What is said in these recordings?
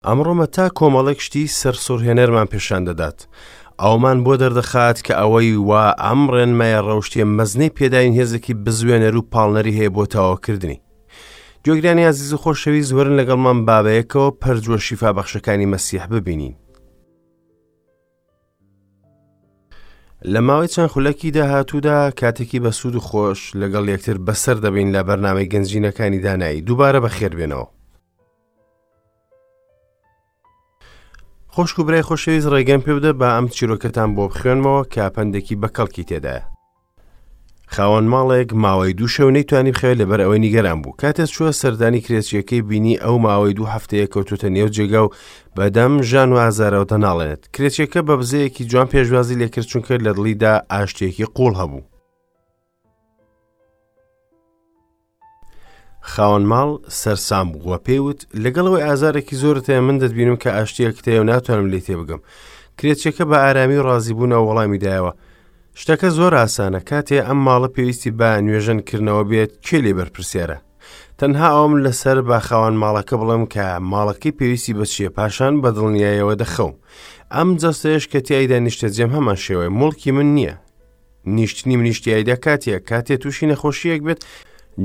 ئەمڕۆ مەتا کۆمەڵێک شتی سەرسوڕهێنەرمان پێشان دەدات. ئەومان بۆ دەردەخات کە ئەوەی وا ئەم ڕێنمایە ڕەوشتیە مەزنەی پێداین هێزێکی بزوێنەر و پاڵنەری هەیە بۆ تەواوکردنی. گوێگرانی ئازیز و خۆشەویست وەرن لەگەڵمان با بەیەکەوە پەرجووە شیفابەخشەکانی مەسیح ببینین. لە ماوەی چەند خولەکی داهاتوودا کاتێکی بەسوود و خۆش لەگەڵ یەکتر بەسەر دەبین لە بەرنامەی گەنجینەکانی دانایی دووبارە بەخێربێنەوە. خۆشک و برای خۆشەویست ڕێگەم پێ بدە با ئەم چیرۆکەتان بۆ بخوێنمەوە کە پەندێکی بەکەڵکی تێدایە. خاوەن ماڵێک ماوەی دوو شەو نەیتوانی بخەوێت لەبەر ئەوەی نیگەران بوو کاتێ چووە سەردانی کرێچیەکەی بینی ئەو ماوەی دوو هەفتەیە کەوتوتە نێو جێگا و بەدەم ژان و ئازارەوە دەناڵێنێت کرێچیەکە بە بزەیەکی جوان پێشوازی لێکرد چونکە لە دڵیدا ئاشتێکی قوڵ هەبوو خاوەن ماڵ سەرسام بوو و پێی وت لەگەڵ ئەوەی ئازارێکی زۆرت هەیە من دەتبینم کە ئاشتییەکت هەیە و ناتوانم لێی تێبگەم کرێچیەکە بە ئارامی و ڕازیبوونەوە وەڵامی دایەوە شتەکە زۆر ئاسانە کاتێ ئەم ماڵە پێویستی بە نوێژەن کردنەوە بێت کێ لێ بەرپرسیارە تەنها ئەوم لەسەر بە خاوەن ماڵەکە بڵێم کە ماڵەکەی پێویستی بە چییە پاشان بە دڵنیایەوە دەخەوم ئەم جەستەیەش کە تیایدا نیشتەجێم هەمان شێوەیە موڵکی من نییە نیشتنی منیش تیایدا کاتیە کاتێ تووشی نەخۆشیەک بێت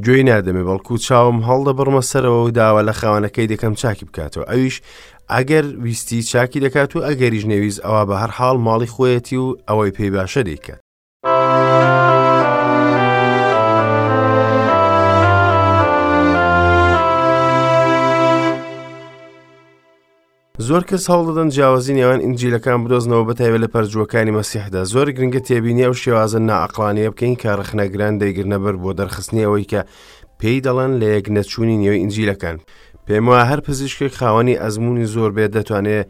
گوێی نادەمێ بەڵکو چاوم هەڵدەبڕمە سەرەوە و داوا لە خاوەنەکەی دەکەم چاکی بکاتەوە ئەویش ئەگەر ویستی چاکی دەکات و ئەگەریش نەویست ئەوە بە هەر حاڵ ماڵی خۆیەتی و ئەوەی پێی باشە دەیکات. زۆر کەس هەوڵدەدەن جیاوازی نێوان ئینجیلەکان بدۆزنەوە بەتایبەت لە پەرجووەکانی مەسیحدا زۆر گرنگە تێبینی ئەو شێوازە نائەقڵانیە بکەین کە ڕەخنەگران دەیگرنە بەر بۆ دەرخستنی ئەوەی کە پێی دەڵێن لە یەک نەچوونی نێو ئینجیلەکان پێم وایە هەر پزیشکێک خاوەنی ئەزموونی زۆر بێت دەتوانێت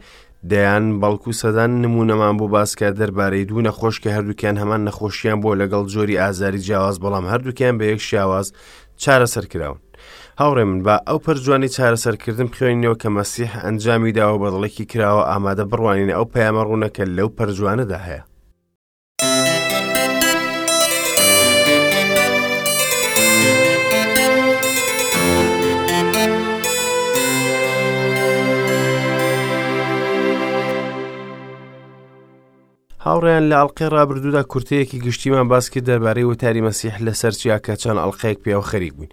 دەیان بەڵکو سەدان نمونەمان بۆ باسکە دەربارەی دوو نەخۆش کە هەردووکیان هەمان نەخۆشیان بۆ لەگەڵ جۆری ئازاری جیاواز بەڵام هەردووکیان بە یەک شیاواز چارەسەر کراون. هاوڕێ من با ئەو پەرجوانی چارەسەرکردن بخوێنینەوە کە مەسیح ئەنجامی داوە بە دڵێکی کراوە ئامادە بڕوانینە ئەو پەیامە ڕوونە کە لەو پەرجوانەدا هەیە. هاوڕێیان لە ئەڵقەی ڕابردوودا کورتەیەکی گشتیمان باس کرد دەربارەی وتاری مەسیح لەسەر چیا کە چەند ئەڵقەیەک پێوە خەریک بووین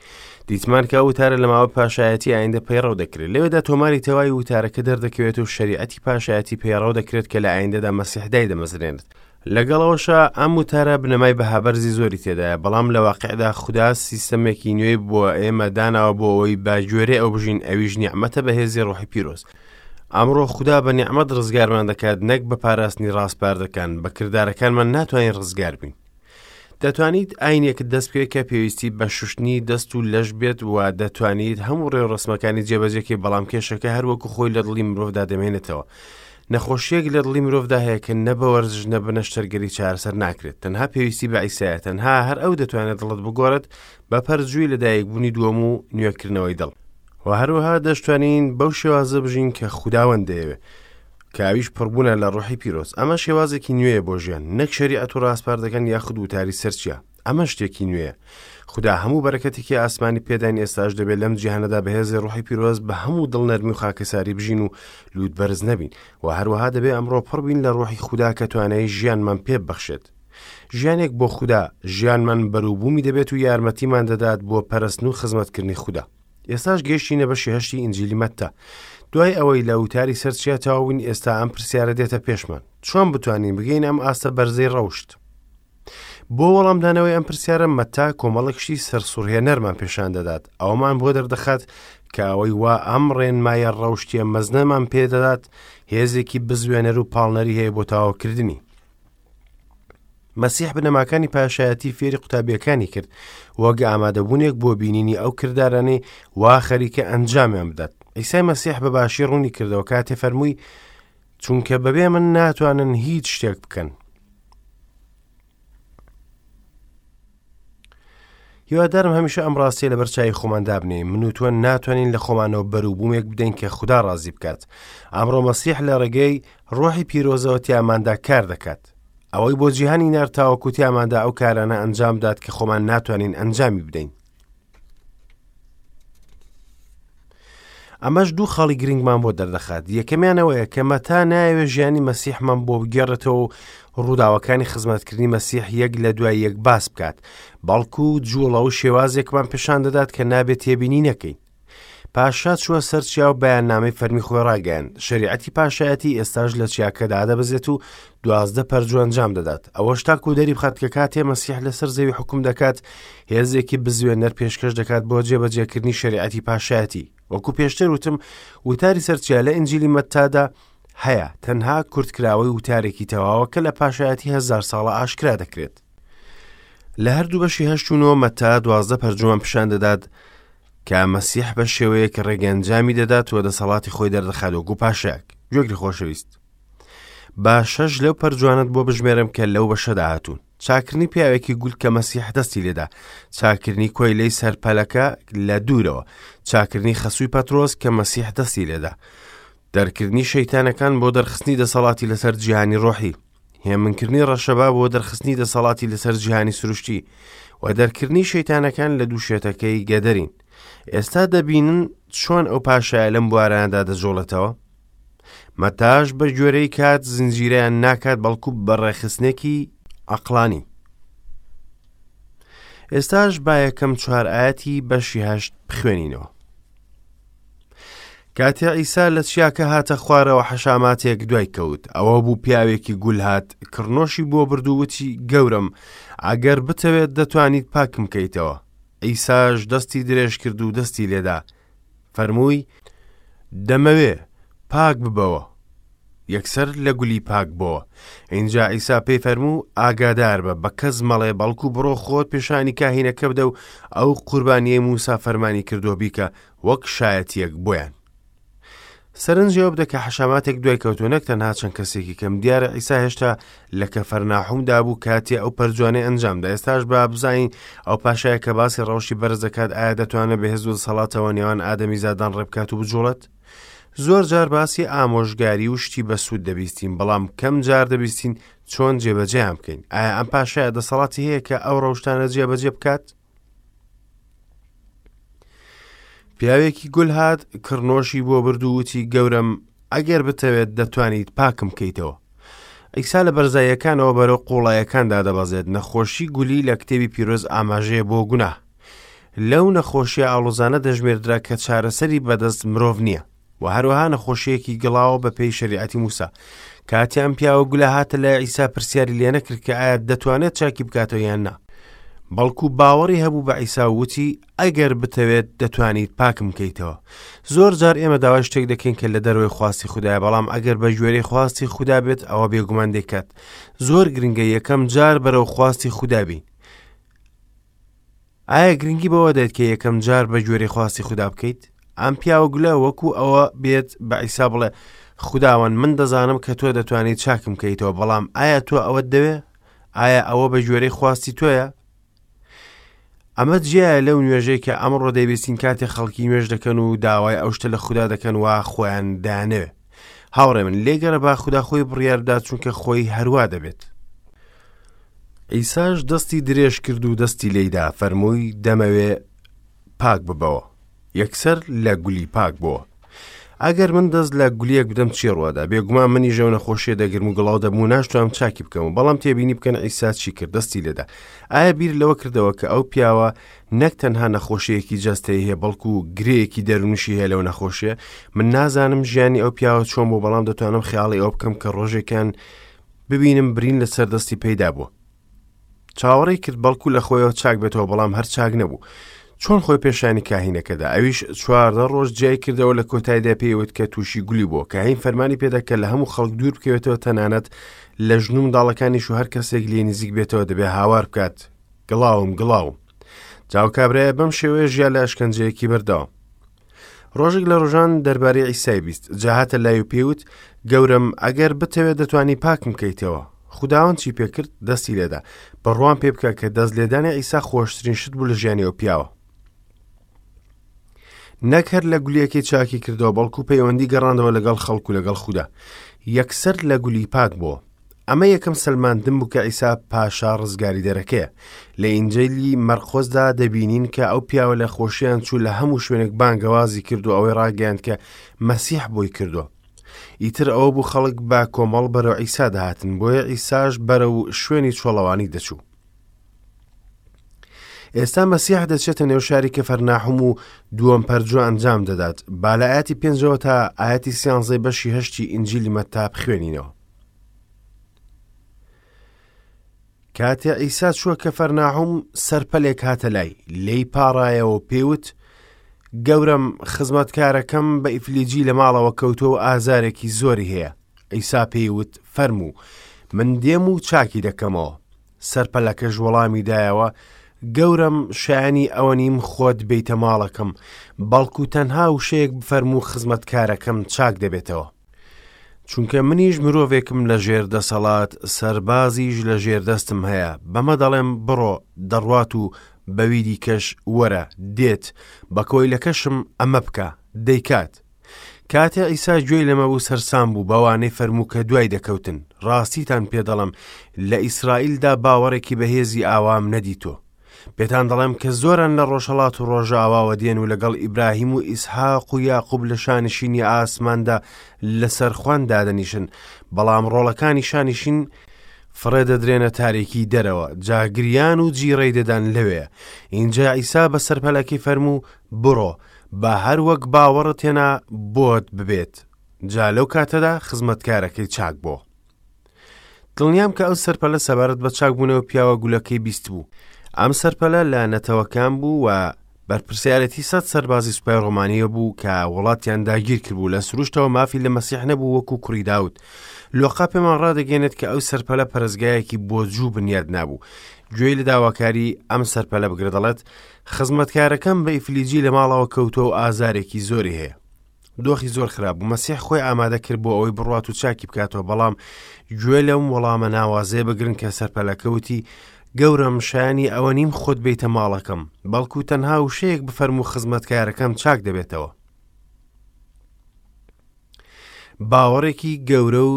دیتمان کە ئەو وتارە لە ماوەی پاشایەتی ئایندە پەیڕەو دەکرێت لەوێدا تۆماری تەواوی وتارەکە دەردەکەوێت و شەریعەتی پاشایەتی پەیڕەو دەکرێت کە لە ئایندەدا مەسیح دایدەمەزرێنێت لەگەڵ ئەوەشا ئەم وتارە بنەمای بەهابەرزی زۆری تێدایە بەڵام لە واقعدا خودا سیستەمێکی نوێی بۆ ئێمە داناوە بۆ ئەوەی بە گوێرەی ئەو بژین ئەویش نیعمەتە بەهێزی ڕۆحی پیرۆز ئەمڕۆ خودا بە نیعمەت ڕزگارمان دەکات نەک بە پاراستنی ڕاسپاردەکان، بە کردارەکانمان ناتوانین ڕزگار بین. دەتوانیت ئاینێکت دەست بکەوێت کە پێویستی بە شوشتنی دەست و لەش بێت و دەتوانیت هەموو ڕێوڕەسمەکانی جێبەجێکەی بەڵام کێشەکە هەروەکو خۆی لە دڵی مرۆڤدا دەمێنێتەوە. نەخۆشیەک لە دڵی مرۆڤدا هەیە کە نە بە وەرزش نە بە نەشتەرگەری چارەسەر ناکرێت تەنها پێویستی بە عیسایە تەنها هەر ئەو دەتوانێت دڵت بگۆڕێت بە پەرجووی لەدایکبوونی دووەم و نوێکردنەوەی دڵ. و هەروەها دەشتوانین بەو شێوازە بژین کە خوداوەند دەیەوێت کە ئەویش پڕبوونە لە ڕۆحی پیرۆز ئەمە شێوازێکی نوێیە بۆ ژیان نەک شەریعەت و ڕاسپاردەکان یاخود وتاری سەرچیا ئەمە شتێکی نوێیە خودا هەموو بەرەکەتێکی ئاسمانی پێداین ئێستاش دەبێت لەم جیهانەدا بەهێزی ڕۆحی پیرۆز بە هەموو دڵ نەرمی و خاکەساری بژین و لووت بەرز نەبین و هەروەها دەبێ ئەمڕۆ پڕ بین لە ڕۆحی خودا کە توانای ژیانمان پێ ببەخشێت ژیانێک بۆ خودا ژیانمان بەروبوومی دەبێت و یارمەتیمان دەدات بۆ پەرستن و خزمەتکردنی خودا ئێستاش گەیشتینە بەشی هەشتی ئینجیلی مەتتا. دوای ئەوەی لە وتاری سەر چیا تەواو بووین ئێستا ئەم پرسیارە دێتە پێشمان. چۆن بتوانین بگەینە ئەم ئاستە بەرزەی ڕەوشت؟ بۆ وەڵامدانەوەی ئەم پرسیارە مەتا کۆمەڵێک شتی سەرسوڕهێنەرمان پێشان دەدات. ئەوەمان بۆ دەردەخات کە ئەوەی وا ئەم ڕێنمایە ڕەوشتیە مەزنەمان پێدەدات هێزێکی بزوێنەر و پاڵنەری هەیە بۆ تەواوکردنی. مەسیح بنەماکانی پاشایەتی فێری قوتابیەکانی کرد وەک ئامادەبوونێک بۆ بینینی ئەو کردارانەی وا خەریکە ئەنجامیان بدات ئیسای مەسیح بە باشی ڕوونی کردەوە کاتێ فەرمووی چونکە بەبێ من ناتوانن هیچ شتێک بکەن هیوادارم هەمیشە ئەم ڕاستیە لەبەر چاوی خۆمان دابنێین، من و تۆ ناتوانین لە خۆمانەوە بەروبوومێک بدەین کە خودا ڕازی بکات. ئەمڕۆ مەسیح لە ڕێگەی ڕۆحی پیرۆزەوە تیاماندا کار دەکات. ئەوەی بۆ جیهانی نارد تاوەکو تیاماندا ئەو کارانە ئەنجام بدات کە خۆمان ناتوانین ئەنجامی بدەین. ئەمەش دوو خاڵی گرنگمان بۆ دەردەخات. یەکەمیان ئەوەیە کە مەتا نایەوێت ژیانی مەسیحمان بۆ بگێڕێتەوە و ڕووداوەکانی خزمەتکردنی مەسیح یەک لە دوای یەک باس بکات، بەڵکو جوڵە و شێوازێکمان پیشان دەدات کە نابێت تێبینی نەکەین. پاشا چووە سەر چیا و بەیاننامەی فەرمی خۆی ڕاگەیاند. شەریعەتی پاشایەتی ئێستاش لە چیاکە دادەبەزێت و 12 پەرجوو ئەنجام دەدات. ئەوەش تاکو دەری بخات کە کاتێ مەسیح لەسەر زەوی حوکم دەکات، هێزێکی بزوێنەر پێشکەش دەکات بۆ جێبەجێکردنی شەریعەتی پاشایەتی. وەکو پێشتر وتم، وتاری سەر چیا لە ئینجیلی مەتتادا هەیە، تەنها کورتکراوەی وتارێکی تەواوە کە لە پاشایەتی هەزار ساڵە ئاشکرا دەکرێت. لە هەردوو بەشی هەشت و نۆ مەتا 12 پەرجوومان پیشان دەدات کە مەسیح بە شێوەیەک ڕێگەنجامی دەدات و دەسەڵاتی خۆی دەردەخات وەکو پاشایەک. گوێگری خۆشەویست، با شەش لەو پەرجوانەت بۆ بژمێرم کە لەو بەشەدا هاتوون. چاکردنی پیاوێکی گول کە مەسیح دەستی لێدا، چاکردنی کۆیلەی سەرپەلەکە لە دوورەوە، چاکردنی خەسووی پەترۆس کە مەسیح دەستی لێدا، دەرکردنی شەیتانەکان بۆ دەرخستنی دەسەڵاتی لەسەر جیهانی ڕۆحی، هێمنکردنی ڕەشەبا بۆ دەرخستنی دەسەڵاتی لەسەر جیهانی سروشتی و دەرکردنی شەیتانەکان لە دوو شێتەکەی گەدەرین. ئێستا دەبینن چۆن ئەو پاشایە لەم بوارانەدا دەجوڵێتەوە؟ مەتاش بە گوێرەی کات زنجیرەیان ناکات بەڵکو بە ڕێکخستنێکی عەقڵانی. ئێستاش با یەکەم چوار ئایەتی بەشی هەشت بخوێنینەوە. کاتێ عیسا لە چیاکە هاتە خوارەوە حەشاماتێک دوای کەوت ئەوە بوو پیاوێکی گول هات کڕنۆشی بۆ برد و وتی گەورەم ئەگەر بتەوێت دەتوانیت پاکم کەیتەوە عیساش دەستی درێژ کرد و دەستی لێدا فەرمووی، دەمەوێ، پاک ببەوە. یەکسەر لە گولی پاک بۆوە. ئینجا عیسا پێی فەرموو، ئاگادار بە، بە کەس مەڵێ، بەڵکو بڕۆ خۆت پێشانی کاهینەکە بدە و ئەو قوربانییەی موسا فەرمانی کردووە بیکە، وەک شایەتییەک بۆیان. سەرنجی ئەوە بدە کە حەشاماتێک دوای کەوتووە نەک تەنها چەند کەسێکی کەم. دیارە عیسا هێشتا لە کەفەرناحومدا بوو کاتێ ئەو پەرجوانەی ئەنجامدا. ئێستاش با بزانین ئەو پاشایە کە باسی ڕەوشی بەرز دەکات ئایا دەتوانێت بە هێز و دەسەڵاتەوە نێوان ئادەمیزادان ڕێبکات و بجوڵێت؟ زۆر جار باسی ئامۆژگاری و شتی بەسوود دەبیستین، بەڵام کەم جار دەبیستین چۆن جێبەجێیان بکەین. ئایا ئەم پاشایە دەسەڵاتی هەیە کە ئەو ڕەوشتانە جێبەجێ بکات؟ پیاوێکی گول هات کڕنۆشی بۆ برد و وتی گەورەم ئەگەر بتەوێت دەتوانیت پاکم کەیتەوە. عیسا لە بەرزاییەکانەوە بەرەو قوڵایەکان دادەبەزێت نەخۆشی گولی لە کتێبی پیرۆز ئاماژەیە بۆ گوناه. لەو نەخۆشیە ئاڵۆزانە دەژمێردرا کە چارەسەری بەدەست مرۆڤ نییە. و هەروەها نەخۆشیەکی گڵاوە بە پێی شەریعەتی موسا. کاتێ ئەم پیاوە گولە هاتە لای عیسا پرسیاری لێ نەکرد کە ئایا دەتوانێت چاکی بکاتەوە یان نا. بەڵکو باوەڕی هەبوو بە عیسا و وتی ئەگەر بتەوێت دەتوانیت پاکم کەیتەوە. زۆر جار ئێمە داوای شتێک دەکەین کە لە دەرەوەی خواستی خودایە بەڵام ئەگەر بە گوێرەی خواستی خودا بێت ئەوە بێگومان دەیکات. زۆر گرنگە یەکەم جار بەرەو خواستی خودا بین. ئایا گرنگی بەوە دەیت کە یەکەم جار بە گوێرەی خواستی خودا بکەیت؟ ئەم پیاوە گولە وەکو ئەوە بێت بە عیسا بڵێ خوداوەند من دەزانم کە تۆ دەتوانیت چاکم کەیتەوە بەڵام ئایا تۆ ئەوەت دەوێ؟ ئایا ئەوە بە گوێرەی خواستی تۆیە؟ ئەمە جیایە لەو نوێژەی کە ئەمڕۆ دەیبیستین کاتێ خەڵکی نوێژ دەکەن و داوای ئەو شتە لە خودا دەکەن وا خۆیان دانەوێ هاوڕێ من لێگەرە با خودا خۆی بڕیار بدات چونکە خۆی هەروا دەبێت. عیساش دەستی درێژ کرد و دەستی لێیدا فەرمووی دەمەوێ پاک ببەوە. یەکسەر لە گولی پاک بۆوە. ئەگەر من دەست لە گولیەک بدەم چی ڕوەدا؟ بێگومان منیش ئەو نەخۆشیە دەگرم و گڵاو دەبم و ناشتوانم چاکی بکەم و بەڵام تێبینی بکەن عیسا چی کرد دەستی لێدا. ئایا بیر لەوە کردەوە کە ئەو پیاوە نەک تەنها نەخۆشیەکی جەستەیی هەیە بەڵکو گرێیەکی دەروونیشی هەیە لەو نەخۆشیە؟ من نازانم ژیانی ئەو پیاوە چۆن بوو بەڵام دەتوانم خەیاڵی ئەوە بکەم کە ڕۆژێکیان ببینم برین لەسەر دەستی پەیدا بووە. چاوەڕێی کرد بەڵکو لە خۆیەوە چاک بێتەوە بەڵام هەر چاک نەبوو. چۆن خۆی پێشانی کاهینەکەدا ئەویش 14 ڕۆژ جیای کردەوە لە کۆتاییدا پێیوت کە تووشی گولی بووە کاهین فەرمانی پێدا کە لە هەموو خەڵک دوور بکەوێتەوە تەنانەت لە ژن و منداڵەکانیش و هەر کەسێک لێ نزیک بێتەوە دەبێ هاوار بکات گڵاوم گڵاوم جاو کابرایە بەم شێوەیە ژیا لە ئەشکەنجەیەکی بەردەوام ڕۆژێک لە ڕۆژان دەربارەی عیسای بیست، جا هاتە لای و پێی وت، گەورەم، ئەگەر بتەوێت دەتوانی پاکم کەیتەوە. خوداوەند چی پێ کرد؟ دەستی لێدا. بڕوام پێ بکە کە دەست لێدانی عیسا خۆشترین شت بوو لە ژیانی ئەو پیاوە. نەک هەر لە گولیەکەی چاکی کردەوە، بەڵکو پەیوەندی گەڕاندەوە لەگەڵ خەڵک و لەگەڵ خودا. یەکسەر لە گولی پاک بووە. ئەمە یەکەم سەلماندن بوو کە عیسا پاشا ڕزگاریدەرەکەیە. لە ئینجیلی مەرقۆسدا دەبینین کە ئەو پیاوە لە خۆشیان چوو لە هەموو شوێنێک بانگەوازی کرد و ئەوەی ڕاگەیاند کە مەسیح بۆی کردووە. ئیتر ئەوە بوو خەڵک بە کۆمەڵ بەرەو عیسا دەهاتن، بۆیە عیساش بەرەو شوێنی چۆڵەوانی دەچوو. ئێستا مەسیح دەچێتە نێو شاری کەفەرناحوم و دووەم پەرجوو ئەنجام دەدات. با لە ئاەتی پێنجەوە تا ئاەتی سیانزەی بەشی هەشتی ئینجیلی مەتا بخوێنینەوە. کاتێ عیسا چووە کەفەرناحوم سەرپەلێک هاتە لای، لێی پاڕایەوە و پێی وت، گەورەم، خزمەتکارەکەم بە ئیفلیجی لە ماڵەوە کەوتووە و ئازارێکی زۆری هەیە. عیسا پێی وت، فەرموو، من دێم و چاکی دەکەمەوە. سەرپەلەکەش وەڵامی دایەوە، گەورەم، شایانی ئەوە نیم خۆت بێیتە ماڵەکەم، بەڵکو تەنها وشەیەک بفەرموو خزمەتکارەکەم چاک دەبێتەوە. چونکە منیش مرۆڤێکم لە ژێر دەسەڵات، سەربازیش لە ژێر دەستم هەیە، بەمە دەڵێم بڕۆ، دەڕوات و بەوی دیکەش وەرە، دێت، بە کۆیلەکەشم ئەمە بکە، دەیکات. کاتێ عیسا گوێی لەمە بوو سەرسام بوو بەوانەی فەرموو کە دوای دەکەوتن، ڕاستیتان پێ دەڵێم لە ئیسرائیلدا باوەڕێکی بەهێزی ئاوام نەدیتووە. پێتان دەڵێم کە زۆران لە ڕۆژهەڵات و ڕۆژاواوە دێن و لەگەڵ ئیبراهیم و ئیسحاق و یاقوب لە شانشینی ئاسماندا لەسەر خوان دادەنیشن، بەڵام ڕۆڵەکانی شانشین فڕێ دەدرێنە تاریکی دەرەوە، جا گریان و جیڕەی دەدان لەوێ. ئینجا عیسا بە سەرپەلەکەی فەرموو، بڕۆ، با هەر وەک باوەڕت هێنا بۆت ببێت. جا لەو کاتەدا خزمەتکارەکەی چاک بۆ. دڵنیام کە ئەو سەرپەلە سەبارەت بە چاکبوونەوە پیاوە گولەکەی بیستبوو. ئەم سەرپەلە لە نەتەوەکان بوو و بەرپرسیارێتی سەد سەربازی سوپای ڕۆمانیە بوو کە وڵاتیان داگیر کردبوو لە سروشتەوە مافی لە مەسیح نەبوو وەکو کوڕی داود. لۆقا پێمان ڕادەگەێنێت کە ئەو سەرپەلە پەرستگایەکی بۆ جوو بنیاد نابوو. گوێی لە داواکاری ئەم سەرپەلە بگرە دەڵێت خزمەتکارەکەم بە ئیفلیجی لە ماڵەوە کەوتووە و ئازارێکی زۆری هەیە. دۆخی زۆر خراپ بوو مەسیح خۆی ئامادە کرد بۆ ئەوەی بڕوات و چاکی بکاتەوە بەڵام گوێ لەم وەڵامە ناوازەیە بگرن کە سەرپەلەکە وتی گەورەم شایانی ئەوە نیم خۆت بیتە ماڵەکەم بەڵکو تەنها وشەیەک بفەرموو خزمەتکارەکەم چاک دەبێتەوە باوەڕێکی گەورە و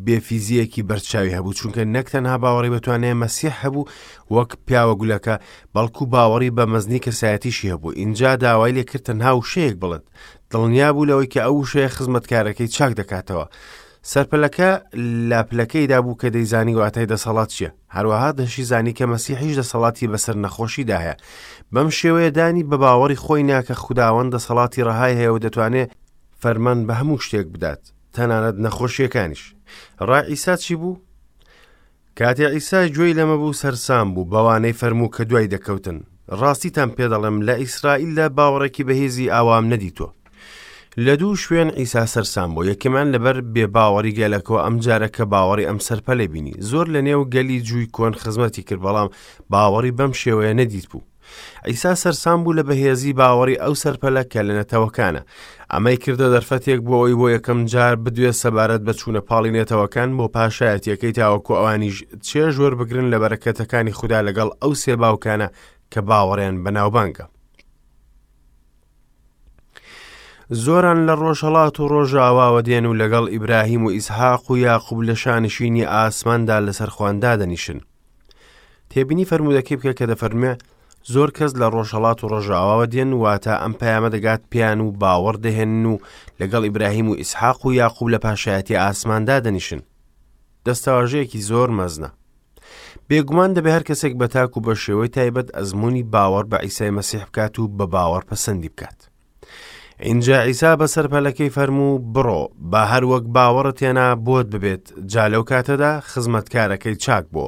بێفیزیەکی بەرچاوی هەبوو چونکە نەک تەنها باوەڕی بەتوانای مەسیح هەبوو وەک پیاوە گولەکە بەڵکو باوەڕی بە مەزنی کەسایەتیشی هەبوو ئینجا داوای لێکرد تەنها وشەیەک بڵێت دڵنیا بوو لەوەی کە ئەو وشەیە خزمەتکارەکەی چاک دەکاتەوە سەرپەلەکە لە پلەکەیدا بوو کە دەیزانی واتای دەسەڵات چییە هەروەها دەشیزانی کە مەسیحیش دەسەڵاتی بەسەر نەخۆشیدا هەیە بەم شێوەیە دانی بە باوەڕی خۆی نا کە خوداوەند دەسەڵاتی ڕەهای هەیە و دەتوانێت فەرمان بە هەموو شتێک بدات تەنانەت نەخۆشیەکانیش ڕای عیسا چی بوو؟ کاتێ عیسا گوێی لەمە بوو سەرسام بوو بەوانەی فەرموو کە دوای دەکەوتن ڕاستیتان پێدەڵێم لە ئیسرائیلدا باوەڕێکی بەهێزی ئاوام نەدیتووە لە دوو شوێن عیسا سەرسام بوو یەکەمان لەبەر بێباوەڕی گەلەکەوە ئەم جارە کە باوەڕی ئەم سەرپەلە بینی زۆر لە نێو گەلی جووی کۆن خزمەتی کرد بەڵام باوەڕی بەم شێوەیە نەدیت بوو عیسا سەرسام بوو لە بەهێزی باوەڕی ئەو سەرپەلە کە لە نەتەوەکانە. ئەمەی کردە دەرفەتێک بۆ ئەوەی بۆ یەکەم جار بدوێت سەبارەت بە چوونە پاڵی نەتەوەکان بۆ پاشایەتیەکەی تاوەکو ئەوانیش چێژ وەربگرن لە بەرەکەتەکانی خودا لەگەڵ ئەو سێ باوکانە کە باوەڕیان بەناوبانگە. زۆران لە ڕۆژهەڵات و ڕۆژاواوە دێن و لەگەڵ ئیبراهیم و ئیسحاق و یاقوب لە شانشینی ئاسماندا لەسەر خوان دادەنیشن. تێبینی فەرموودەکەی بکە کە دەفەرموێ زۆر کەس لە ڕۆژهەڵات و ڕۆژاواوە دێن واتە ئەم پەیامە دەگات پێیان و باوەڕ دەهێنن و لەگەڵ ئیبراهیم و ئیسحاق و یاقوب لە پاشایەتی ئاسماندا دەنیشن دەستەواژەیەکی زۆر مەزنە بێگومان دەبێ هەر کەسێک بە تاک و بە شێوەی تایبەت ئەزمموی باوەڕ بە ئیسای مەسیح بکات و بە باوەڕ پەسەندی بکات ئینجا عیسا بە سەرپەلەکەی فەرموو، بڕۆ، با هەر وەک باوەڕت هێنا بۆت ببێت. جا لەو کاتەدا خزمەتکارەکەی چاک بۆ.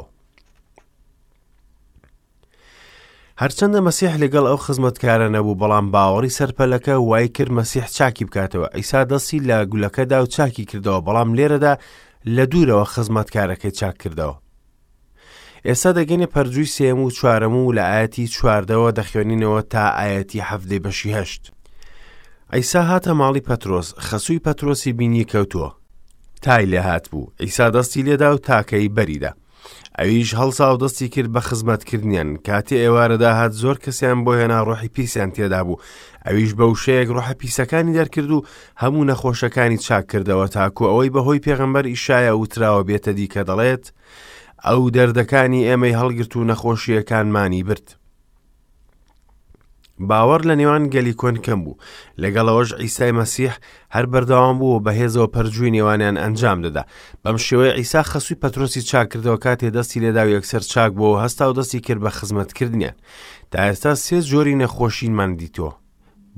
هەرچەندە مەسیح لەگەڵ ئەو خزمەتکارە نەبوو بەڵام باوەڕی سەرپەلەکە وای کرد مەسیح چاکی بکاتەوە ئیسا دەستی لە گولەکەدا و چاکی کردەوە بەڵام لێرەدا لە دوورەوە خزمەتکارەکەی چاک کردەوە ئێستا دەگەینە پەرجووی سێیەم و چوارەم و لە ئایەتی چواردەوە دەخوێنینەوە تا ئایەتی حەڤدەی بەشی هەشت. عیسا هاتە ماڵی پەترۆس، خەسووی پەترۆسی بینی کەوتووە. تای لێ هاتبوو، عیسا دەستی لێدا و تاکەی بەریدا. ئەویش هەڵسا و دەستی کرد بە خزمەتکردنیان. کاتێ ئێوارە داهات زۆر کەسیان بۆ هێنا ڕۆحی پیسیان تێدا بوو. ئەویش بە وشەیەک ڕۆحە پیسەکانی دەرکرد و هەموو نەخۆشەکانی چاک کردەوە تاکو ئەوەی بەهۆی پێغەمبەر ئیشایا وتراوە بێتە دی کە دەڵێت ئەو دەردەکانی ئێمەی هەڵگرت و نەخۆشییەکانمانی برد. باوەڕ لە نێوان گەلی کۆن کەم بوو لەگەڵەوەش ئیسای مەسیح هەر بەردەوام بوو و بەهێزەوە پەرجووی نێوانیان ئەنجام دەدا بەم شێوەیە ئیسا خەسووی پەترۆسی چاکردەوە کاتێ دەستی لێدا و یەکسەر چاک بووەوە هەستا و دەستی کرد بە خزمەتکردنیان تا ئێستا سێ جۆری نەخۆشینمان دیتووە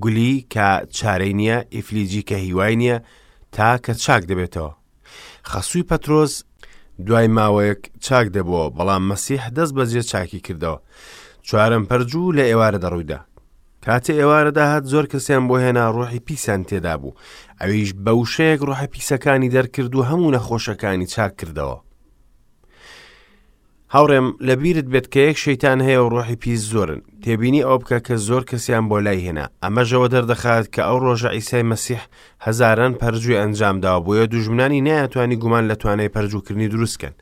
گولی کە چارەی نییە ئیفلیجی کە هیوای نییە تا کە چاک دەبێتەوە خەسووی پەترۆس دوای ماوەیەک چاک دەبووەوە بەڵام مەسیح دەست بەجێ چاکی کردەوە چوارەم پەرجوو لە ئێوارە دەڕوویدا کاتێ ئێوارە داهات زۆر کەسیان بۆ هێنا ڕۆحی پیسان تێدا بوو ئەویش بە وشەیەک ڕۆحە پیسەکانی دەرکرد و هەموو نەخۆشەکانی چاک کردەوە هاوڕێم لەبیرت بێت کە یەک شەیتان هەیە و ڕۆحی پیس زۆرن تێبینی ئەوە بکە کە زۆر کەسیان بۆ لای هێنا ئەمەشەوە دەردەخات کە ئەو ڕۆژە ئیسای مەسیح هەزاران پەرجووی ئەنجام داوە بۆیە دوژمنانی نەیانتوانی گومان لە توانای پەرجووکردنی دروست کەن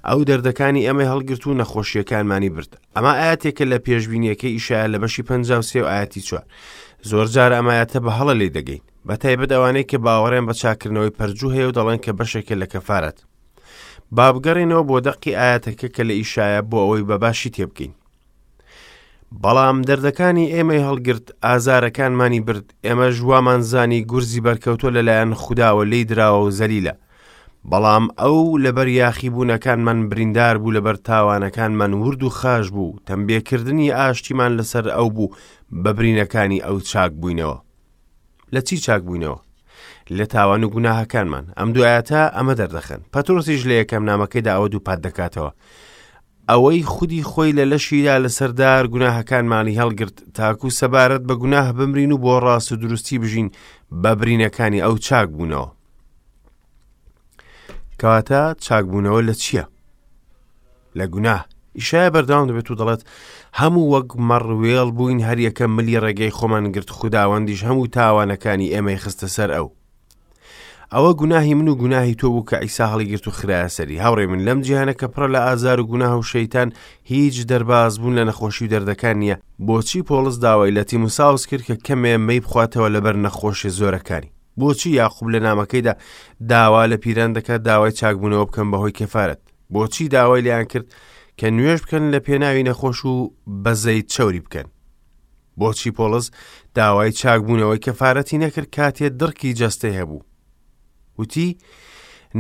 ئەو دەردەکانی ئێمەی هەڵگرت و نەخۆشیەکانمانی برد ئەمە ئاەتێکە لە پێشبینیەکەی ئیشایە لە بەشی 53 و ئاەتی 4 زۆر جار ئەمایەتە بە هەڵە لی دەگەین بە تایبەت ئەوانەی کە باوەڕیان بە چاکردنەوەی پەرجوو هەیە و دەڵێن کە بەشێکە لە کەفارەت با بگەڕێینەوە بۆ دەقی ئاەتەکە کە لە ئیشایە بۆ ئەوەی بە باشی تێبگەین بەڵام دەردەکانی ئێمەی هەڵگرت ئازارەکانمانی برد ئێمەش وامان زانی گورزی بەرکەوتۆ لەلایەن خودداوە لی دراوە و زەلیلە بەڵام ئەو لەبەر یاخیبوونەکانمان بریندار بوو لەبەر تاوانەکانمان ورد و خاش بوو تەمبێکردنی ئاشتیمان لەسەر ئەو بوو بە برینەکانی ئەو چاک بووینەوە لە چی چاک بووینەوە؟ لە تاوان و گوناهەکانمان ئەم دوایەتە ئەمە دەردەخەن پەترۆسیش لە یەکەم نامەکەیدا ئەوە دووپات دەکاتەوە ئەوەی خودی خۆی لە لەشیدا لەسەر دار گوناهەکانمانی هەڵگرت تاکو سەبارەت بە گوناه بمرین و بۆ ڕاست و دروستی بژین بە برینەکانی ئەو چاک بوونەوە کەواتە چاکبوونەوە لە چییە؟ لە گوناه ئیشایە بەردەوام دەبێت و دەڵێت هەموو وەک مەڕ وێڵ بووین هەریەکە ملی ڕێگەی خۆمان گرت خوداوەندیش هەموو تاوانەکانی ئێمەی خستە سەر ئەو ئەوە گوناهی من و گوناهی تۆ بوو کە ئیسا هەڵیگرت و خراە سەری هاوڕێ من لەم جیهانە کە پڕە لە ئازار و گوناه و شەیتان هیچ دەرباز بوون لە نەخۆشی و دەردەکان نییە بۆچی پۆڵس داوای لە تیموساوس کرد کە کەمێ مەی بخواتەوە لەبەر نەخۆشی زۆرەکانی بۆچی یاقوب لە نامەکەیدا داوا لە پیران دەکات داوای چاکبوونەوە بکەن بەهۆی کەفارەت بۆچی داوای لێیان کرد کە نوێژ بکەن لە پێناوی نەخۆش و بەزەیت چەوری بکەن بۆچی پۆڵس داوای چاکبوونەوەی کەفارەتی نەکرد کاتێ دڕکی جەستەی هەبوو وتی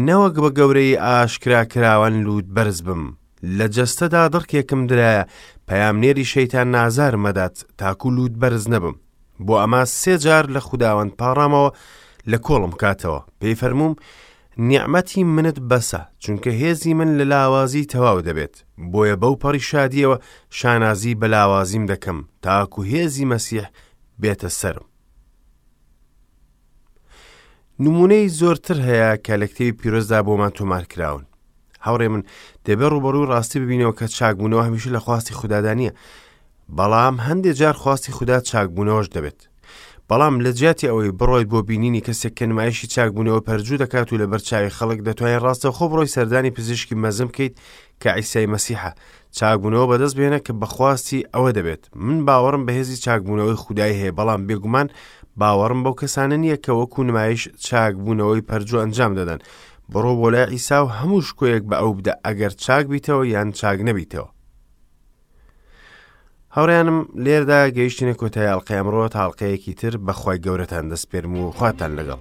نەوەک بە گەورەی ئاشکرا کراوان لووت بەرز بم لە جەستەدا دڕکێکم درایە پەیامنێری شەیتان نازار مەدات تاکو لووت بەرز نەبم بۆ ئەمە سێ جار لە خوداوەند پاڕامەوە لە کۆڵم کاتەوە پێی فەرمووم نیعمەتی منت بەسە چونکە هێزی من لە لاوازی تەواو دەبێت بۆیە بەو پەڕی شادیەوە شانازی بە لاوازیم دەکەم تاکو هێزی مەسیح بێتە سەرم نمونەی زۆرتر هەیە کە لە کتێبی پیرۆزدا بۆمان تۆمار کراون هاوڕێ من دەبێ ڕوبەڕوو ڕاستی ببینەوە کە چاکبوونەوە هەمیشە لە خواستی خوددادا نییە بەڵام هەندێک جار خواستی خودا چاکبوونەوەش دەبێت بەڵام لە جیاتی ئەوەی بڕۆیت بۆ بینینی کەسێک کە نمایشی چاکبوونەوە پەرجوو دەکات و لەبەر چاوی خەڵک دەتوانێت ڕاستەوخۆ بڕۆی سەردانی پزیشکی مەزن بکەیت کە عیسای مەسیحە چاکبوونەوە بەدەست بهێنە کە بەخواستی ئەوە دەبێت من باوەڕم بەهێزی چاکبوونەوەی خودای هەیە بەڵام بێگومان باوەڕم بەو کەسانە نییە کە وەکو نمایش چاکبوونەوەی پەرجوو ئەنجام دەدەن بڕۆ بۆ لای عیسا و هەموو شکۆیەک بە ئەو بدە ئەگەر چاک بیتەوە یان چاک نەبیتەوە هاوڕیانم لێردا گەیشتینە کۆتای ئەڵلقەی ئەمڕۆ تا ئەڵلقەیەکی تر بەخوای گەورەتان دەسپێرم و خواتان لەگەڵ.